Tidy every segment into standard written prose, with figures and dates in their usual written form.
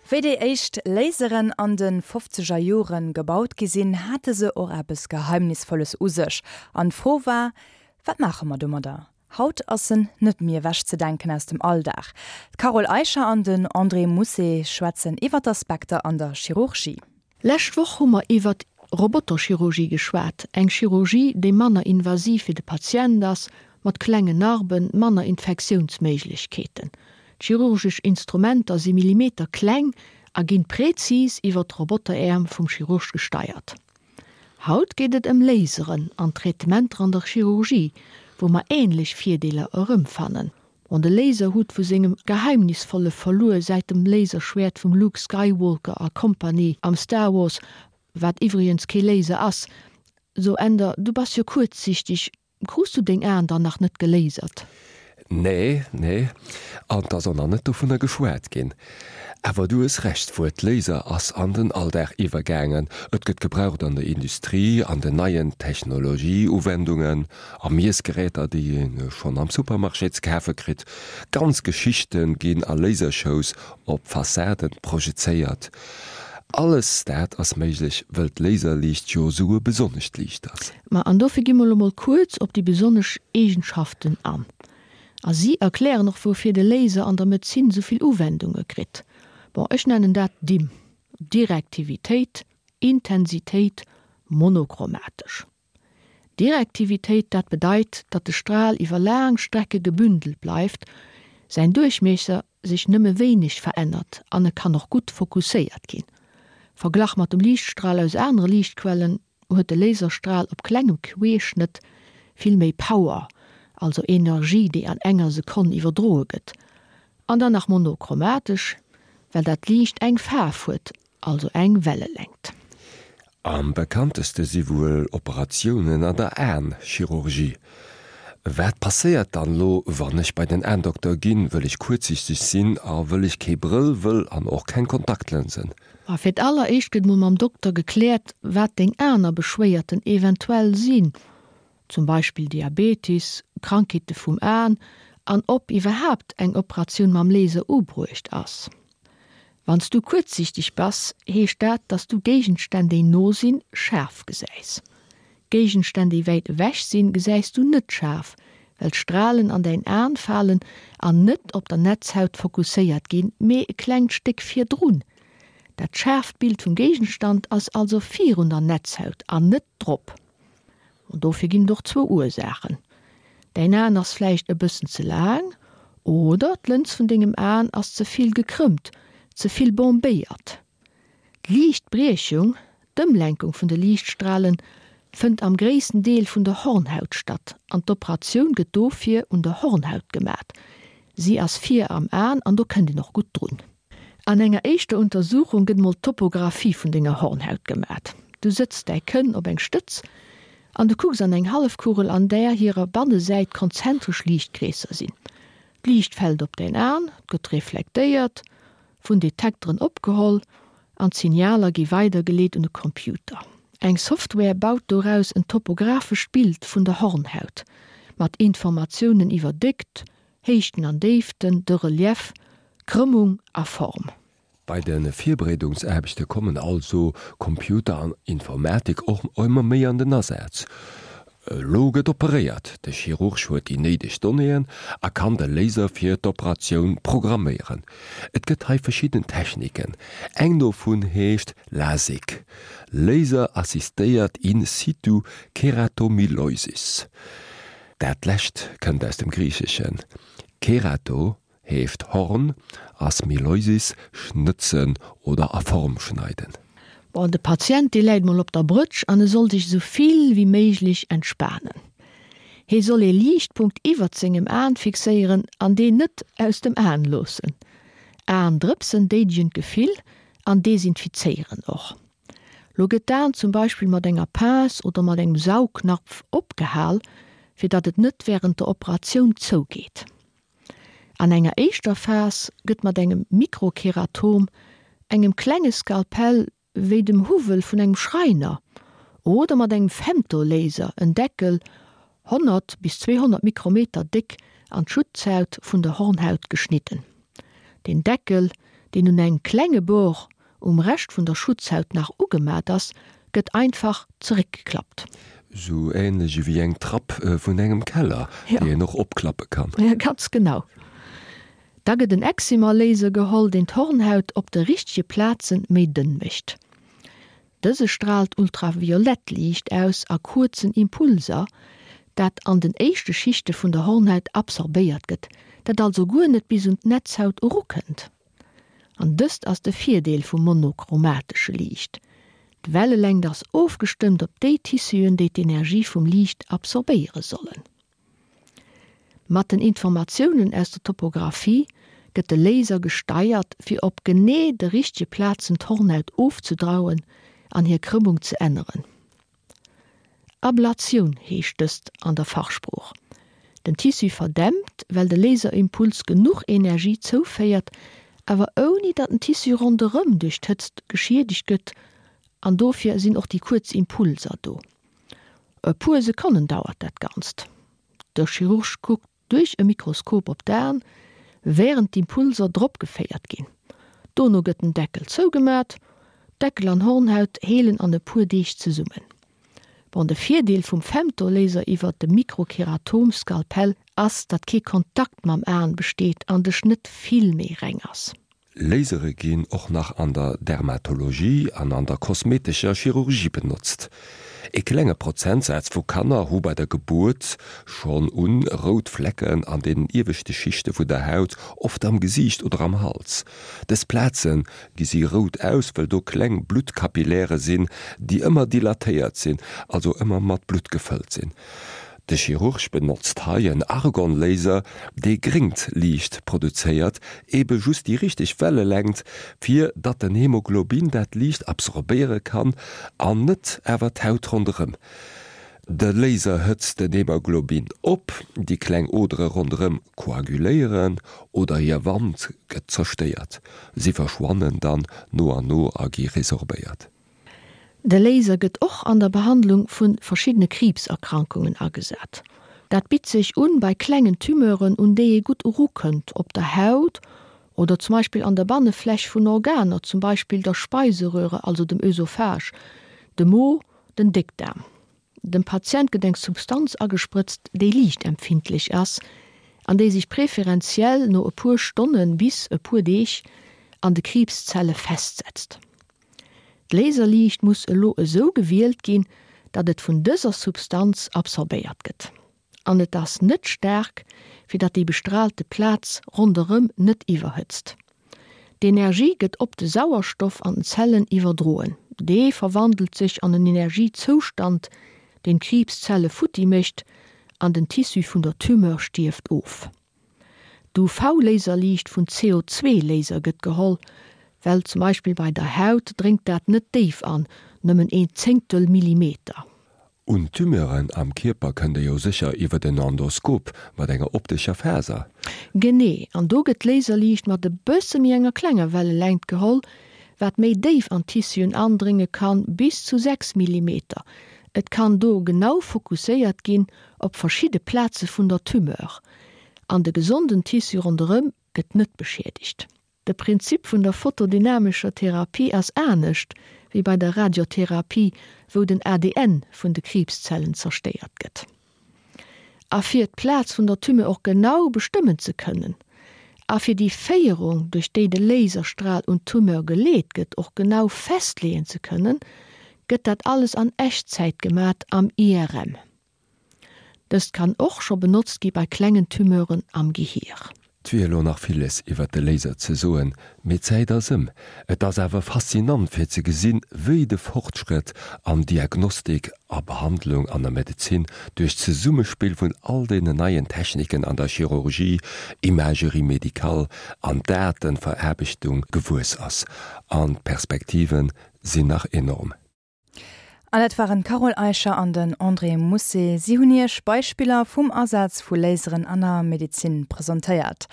Wéi déi éischt Laseren an de fofzeger Jore gebaut gi sinn, hate se och eppes Geheimnisvolles u sech. An d'Fro war, Wat maache mer domadder? Haut ass en net méi ewechzedenken aus dem Alldag. D'Carole Eicher an den André Mousset schwätzen iwwer d'Aspekter an der Chirurgie. Lescht Woch hu mer iwwert Roboterchirurgie geschwat, eng Chirurgie, déi manner invasiv fir de Patient ass, mat klengen Narben, manner Infektiounsméiglechkeeten. D'chirurgesch Instrumenter si millimeterkleng a ginn präzis iwwert d'Roboteräerm vum Chirurg gesteiert. Haut geet et ëm Laseren an Traitementer an der Chirurgie, wou mer änlech Virdeeler erëmfannen. Bon, de Laser huet vu sengem geheimnisvolle Verluer säit dem Laserschwäert vum Luke Skywalker a Compagnie am Star Wars, wat iwwregens kee Laser ass, so Änder, du bass jo kuerzsichteg, krus du deng Aen dann nach net gelasert? Nee, nee, an 't ass och nach net dovunner geschwat ginn. Awer du hues Recht, d'Wuert Laser ass an den Alldag iwwergaangen. Et gëtt gebraucht an der Industrie, an den neien Technologieuwendungen, a Miessgeräter, déi ee schonn am Supermarché ze kafe kritt. Ganz Geschichte ginn a Lasershows op Fassaden projezéiert. Alles dat ass méiglech, wëll d'Laserliicht jo esou e besonnescht Liicht ass. Ma an dofir gi mer elo mol kuerz op déi besonnesch Eegenschaften an. A si erklären och woufir de Laser an der Medezin esou vill Uwendunge kritt. Bon, ech nennen dat DIM, Direktivitéit, Intensitéit, monochromatesch. Direktivitéit, dat bedeit, datt de Stral iwwer laang Strecke gebündelt bleift, säin Duerchmiesser sech nëmme wéineg verännert an e kann och gutt fokusséiert ginn. Verglach mat dem Liichtstral aus anere Liichtquellen huet de Laserstral op klengem Queeschnëtt vill méi Power, also Energie déi an enger Sekonn iwwerdroe gëtt. An dann nach monochromatesch, well dat Liicht eng Faarf huet, also eng Wellelängt. Am bekannteste si wuel Operatiounen an der Aen-Chirurgie. Wat passéiert dann lo, wann ech bei den Aendokter ginn, wëll ech kuerzsichteg sinn a wëll ech kee Brëll wëll an och keng Kontaktlënsen? Ma fir d'alleréischt gëtt mol mam Dokter gekläert, wat deng aner Beschwéierten eventuell sinn, zum Beispill Diabetis, Krankheete vum Aen an ob iwwerhaapt eng Operatioun mam Laser ubruecht ass. Wann s du kuerzsiichteg bass, heescht dat, dass du Géigenstänn, déi no sinn, schaarf gesäis. Géigenstänn, déi wäit ewech sinn, gesäis du net schaarf, well d'Stralen an däin Aen falen an net op der Netzhaut fokusséiert ginn, mee e klengt Stéck virdrun. Dat schaarft Bild vum Géigenstand ass also virun der Netzhaut an net drop. An dofir ginn et och zwou Ursaachen, Däin Aen ass vläicht e bëssen ze laang oder d'Lëns vun dengem Aen ass ze vill gekrëmmt, ze vill bombéiert. D'Liichtbriechung, d'Ëmlenkung vun de Liichtstralen, fënnt am gréissten Deel vun der Hornhaut statt an d'Operatioun gëtt dofir un der Hornhaut gemat. Si ass vir am Aen an do kënnt een och gutt drun. An enger éischter Untersuchung gëtt mol d'Topographie vun denger Hornhaut gemat. Du sëtz däi Kënn op eng Stëtz an du kucks an eng Hallefkugel an där hirer Bannesäit konzentresch Liichtkreesser sinn. D'Liicht fält op däin An, gëtt reflektéiert, vun Detekteren opgeholl an d'Signaler gi weidergeleet un e Computer. Eng Software baut doraus en topographescht Bild vun der Hornhaut, mat Informatiounen iwwer Déckt, Héichten an Déiften, de Relief, Krëmmung a Form. Bei de Virbereedungsaarbechte kommen also Computer an Informatik och ëmmer méi an den Asaz. Elo gëtt operéiert, de Chirurg huet déi néideg Donnéeën a kann de Laser fir d'Operatioun programméieren. Et gëtt hei verschidden Techniken, eng dovun heescht LASIK, Laser-assistéiert in situ Keratomileusis. Dat lescht kënnt aus dem Griicheschen. Kerato heescht Horn a smiloisis schnëtzen oder a Form schneiden. Bon, de Patient, dee läit mol op der Brëtsch an e soll sech esou vill wéi méiglech entspanen. Hee soll ee Liichtpunkt iwwert sengem Aen fixéieren an deen net aus dem Aen loossen. Aendrëpsen déidegen d'Gefill an desinfizéieren och. Lo gëtt d'Aen zum Beispill mat enger Pince oder mat engem Saugnapf opgehal, fir datt et net wärend der Operatioun zougeet. An enger éischter Phas gëtt mat engem Mikrokeratom, engem klenge Skalpell wéi dem Huwwel vun engem Schreiner, oder mat engem Femtolaser en Deckel, 100 bis 200 Mikrometer déck, an d'Schutzhaut vun der Hornhaut geschnidden. Den Deckel, deen un engem klenge Bord um Rescht vun der Schutzhaut nach ugemat ass, gëtt einfach zeréckgeklappt. Sou änlech ewéi eng Trapp vun engem Keller, déi een och opklappe kann. Jo, ganz genau. Da gëtt en Excimer-Laser geholl, deen d'Hornhaut op de richtege Plaze méi dënn mécht. Dëse straalt ultraviolett Liicht aus a kuerzen Impulser, dat an den éischte Schichte vun der Hornhaut absorbéiert gëtt, dat also guer net bis un d'Netzhaut erukënnt. An dëst ass de Virdeel vum monochromatesche Liicht, D'Wellelängt ass ofgestëmmt op déi Tissuen, déi d'Energie vum Liicht absorbéiere sollen. Mat den Informatiounen aus der Topographie gëtt de Laser gesteiert, fir op genee de richtege Plazen d'Hornhaut ofzedrauen an hir Krëmmung ze änneren. Ablatioun heescht dëst an der Fachsprooch. Den Tissu verdämpt, well de Laserimpuls genuch Energie zouféiert, awer ouni datt den Tissu ronderëm duerch d'Hëtzt geschiedegt gëtt an dofir sinn och déi kuerz Impulser do. E puer Sekonnen dauert dat Ganzt. De Chirurg kuckt duerch e Mikroskop op d'Aen, wärend d'Impulser drop geféiert ginn. Dono gëtt den Deckel zougemat. Deckel an Hornhaut heelen an e puer Deeg zesummen. Bon, de Virdeel vum Femtolaser iwwert de Mikrokeratom-Skalpell ass, datt kee Kontakt mam Aen besteet an de Schnëtt vill méi reng ass. Lasere ginn och nach an der Dermatologie an an der kosmetescher Chirurgie benotzt. E klenge Prozentsaz vu Kanner hu bei der Gebuert schonn un rout Flecken an den ieweschte Schichte vun der Haut, oft am Gesiicht oder am Hals. Dës Plaze gesi rout aus, wëll do kleng Bluttkapilläre sinn, déi ëmmer dilatéiert sinn, also ëmmer mat Blutt gefëllt sinn. De Chirurg benotzt hei en Argonlaser, dee gréngt Liicht produzéiert, ebe just déi richteg Wellelängt, fir datt den Hemoglobin dat Liicht absorbéiere kann an net awer d'Haut ronderëm. De Laser hëtzt den Hemoglobin op, déi kleng Odere ronderëm koaguléieren oder hir Wand gëtt zerstéiert. Si verschwannen dann no an no a gi resorbéiert. De Laser gëtt och an der Behandlung vu verschiddene Kriibserkrankungen agesat. Dat bitt sech un bei klengen Tumeuren, un déi ee gutt erukënnt, op der Haut oder zum Beispill an der Bannefläch vun Organer, zum Beispill der Speiseröhre, also dem Ösophage, dem Mo, den Déckdaarm. Dem Patient gëtt eng Substanz agesprëtzt, déi liichtempfindlech ass an déi sech preferenziell no e puer Stonne bis e puer Deeg an de Kriibszelle festsetzt. D'Laserliicht muss elo esou gewielt ginn, datt et vun dëser Substanz absorbéiert gëtt. An et ass net staark, fir datt déi bestraalte Plaz ronderëm net iwwerhëtzt. D'Energie gëtt op de Sauerstoff an den Zellen iwwerdroen. Dee verwandelt sech an en Energiezoustand, deen d'Kriibszelle futti mécht an den Tissu vun der Tumeur stierft of. D'UV-Laserliicht vun CO2-Laser gëtt geholl, well zum Beispill bei der Haut dréngt dat net déif an, nëmmen een Zéngtel Millimeter. Un Tumeuren am Kierper kënnt e jo sécher iwwert en Endoskop mat enger optescher Faser. Genee, an do gëtt d'Laserliicht mat e bësse méi enger klenger Wellelängt geholl, wat méi déif an d'Tissuen andrénge kann, bis zu 6 Millimeter. Et kann do genau fokusséiert ginn op verschidde Plaze vun der Tumeur. An de gesonden Tissu ronderëm gëtt net beschiedegt. De Prinzip vun der photodynamescher Therapie ass anescht wéi bei der Radiotherapie, wou den ADN vun de Kriibszellen zerstéiert gëtt. A fir d'Plaz vun der Tumeur och genau bestëmmen ze kënnen a fir déi Féierung, duerch déi de Laserstral un d'Tumeur geleet gëtt, och genau festleeën ze kënnen, gëtt dat alles an Echtzäit gemat am IRM. Dëst kann och scho benotzt gi bei klengen Tumeuren am Gehier. 't wier elo nach villes iwwert de Laser ze soen, mee d'Zäit ass ëm. Et ass awer faszinant fir ze gesinn, wéi de Fortschrëtt an Diagnostik a Behandlung an der Medezin duerch d'Zesummespill vun all deenen neien Techniken an der Chirurgie, Imagerie médicale an Datenveraarbechtung gewuess ass. An d'Perspektive sinn nach enorm. An dat waren d'Carole Eicher an den André Mousset. Si hunn Iech Beispiller vum Asaz vu Laseren an der Medezin presentéiert.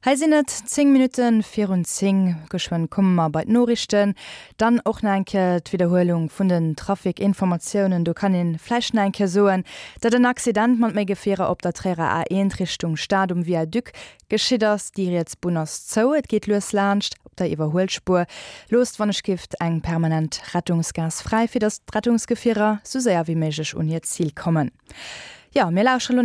Hei sinn et 10 Minutte virun 10. Geschwënn komme mer bei d'Noriichten. Dann och nach eng Kéier d'Widderhuelung vun den Trafic-Informatiounen. Do kann ee vläicht nach eng Kéier soen, datt en Accident mat méi Gefierer op der Tréierer A1 Richtung Stad um Viaduc geschitt ass. Déi riets Bunn ass zou, et geet lues laanscht op der Iwwerhuelspuer. Loosst wann ech gift eng permanent Rettungsgaass fräi, fir datt d'Rettungsgefierer sou séier wéi méiglech un hiert Zil kommen. Jo, mir lauschtere lo.